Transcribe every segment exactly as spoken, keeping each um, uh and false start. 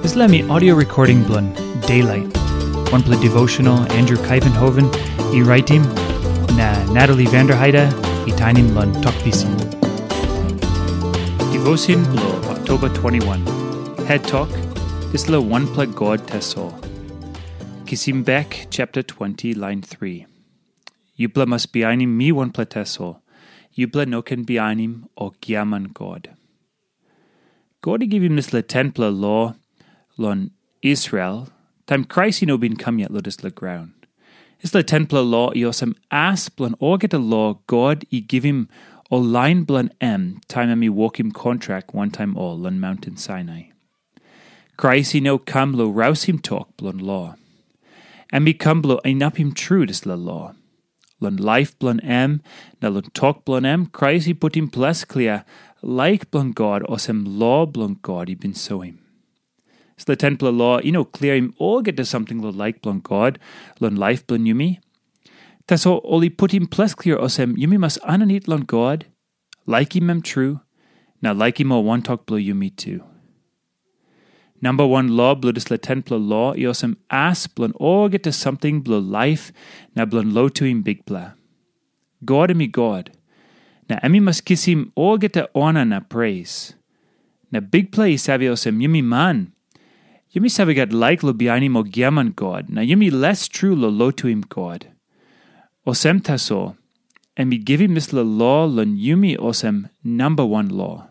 Dispela mi audio recording bilong Daylight, wanpela devotional Andrew Kaivenhoven i raitim, na Natalie Vanderheide i tainim long Tok Pisin. Devotion bilong October twenty-one. Head Tok, Dispela Wanpela God Tasol. Kisim Bek chapter twenty, line three. Yupela mas bihainim mi wanpela tasol. Yupela no ken bihainim ol giaman god. God i givim dispela tenpela lo long Israel, taim Krais i no bin kam yet long dispela graun. Dispela tenpela lo i olsem as bilong olgeta lo God i givim ol lain bilong em taim em i wokim kontrak wantaim ol long maunten Sainai. Krais i no kam long rausim tok bilong lo. Em i kam bilong inapim tru dispela lo. Long laip bilong em na long tok bilong em, Krais i putim ples klia laik bilong God olsem lo bilong God i bin soim. Dispela tenpela lo i no kliarim olgeta samting long laik bilong God long laip bilong yumi. Tasol ol i putim ples klia olsem yumi mas aninit long God, laikim em tru, na laikim ol wantok bilong yumi tu. Namba wan lo bilong dispela tenpela lo i olsem as bilong olgeta samting bilong laip na bilong lotuim Bikpela. God em i God, na em i mas kisim olgeta ona na pres. Na Bikpela i save olsem yumi man, yumi save gat laik long bihainim ol giaman god, na yumi les tru long lotuim God. Olsem tasol, em i givim dispela lo long yumi olsem namba wan lo.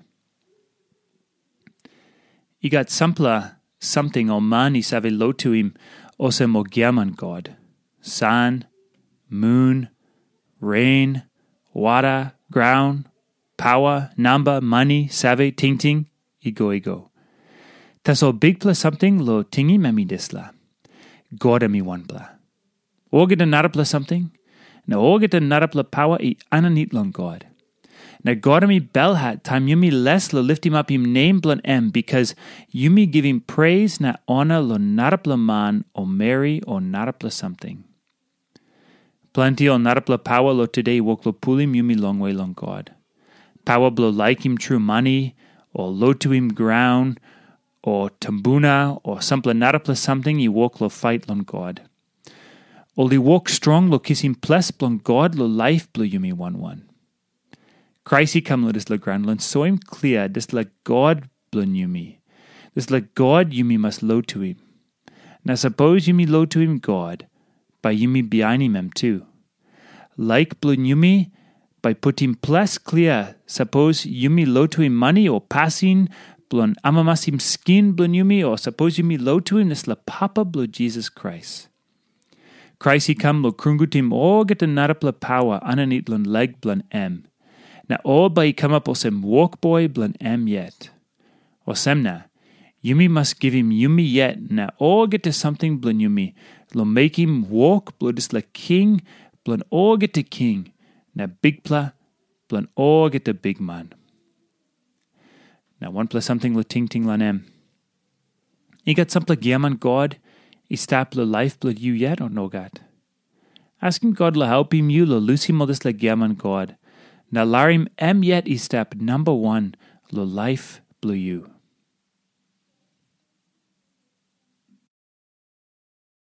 I gat sampela samting ol man i save lotuim olsem ol giaman god: san, mun, ren, wara, graun, paua, namba, mani, save, tingting, i go i go. Tasol bikpela samting long tingim em i dispela: God em i wanpela. Olgeta narapela samting na olgeta narapela paua i aninit long God. Na God em i belhat taim yumi les long litimapim nem bilong em, bikas yumi givim pres na ona long narapela man o meri o narapela samting. Planti ol narapela paua long tude i wok long pulim yumi longwe long God. Paua bilong laikim tru mani, o lotuim graun, o tambuna, o sampela narapela samting i wok long fait long God. Ol i wok strong long kisim ples bilong God long laip bilong yumi wan wan. Krais i kam long dispela graun long soim klia dispela God bilong yumi, dispela God yumi mas lotuim. Na sapos yumi lotuim God, bai yumi bihainim em tu. Laik bilong yumi bai putim ples klia sapos yumi lotuim mani o pasin bilong amamasim skin bilong yumi, o sapos yumi lotuim dispela Papa bilong Jisas Krais. Krais i kam long krungutim olgeta narapela paua aninit long lek bilong em, na ol bai i kamap olsem wokboi bilong em yet. Olsem na, yumi mas givim yumi yet na olgeta samting bilong yumi long mekim wok bilong dispela King bilong olgeta king na Bikpela bilong olgeta bikman. Na wanpela samting long tingting long em. I gat sampela giaman god i stap long laip bilong yu yet, o nogat? Askim God long helpim yu long lusim ol dispela giaman god, na larim em yet i stap namba wan long laip bilong yu.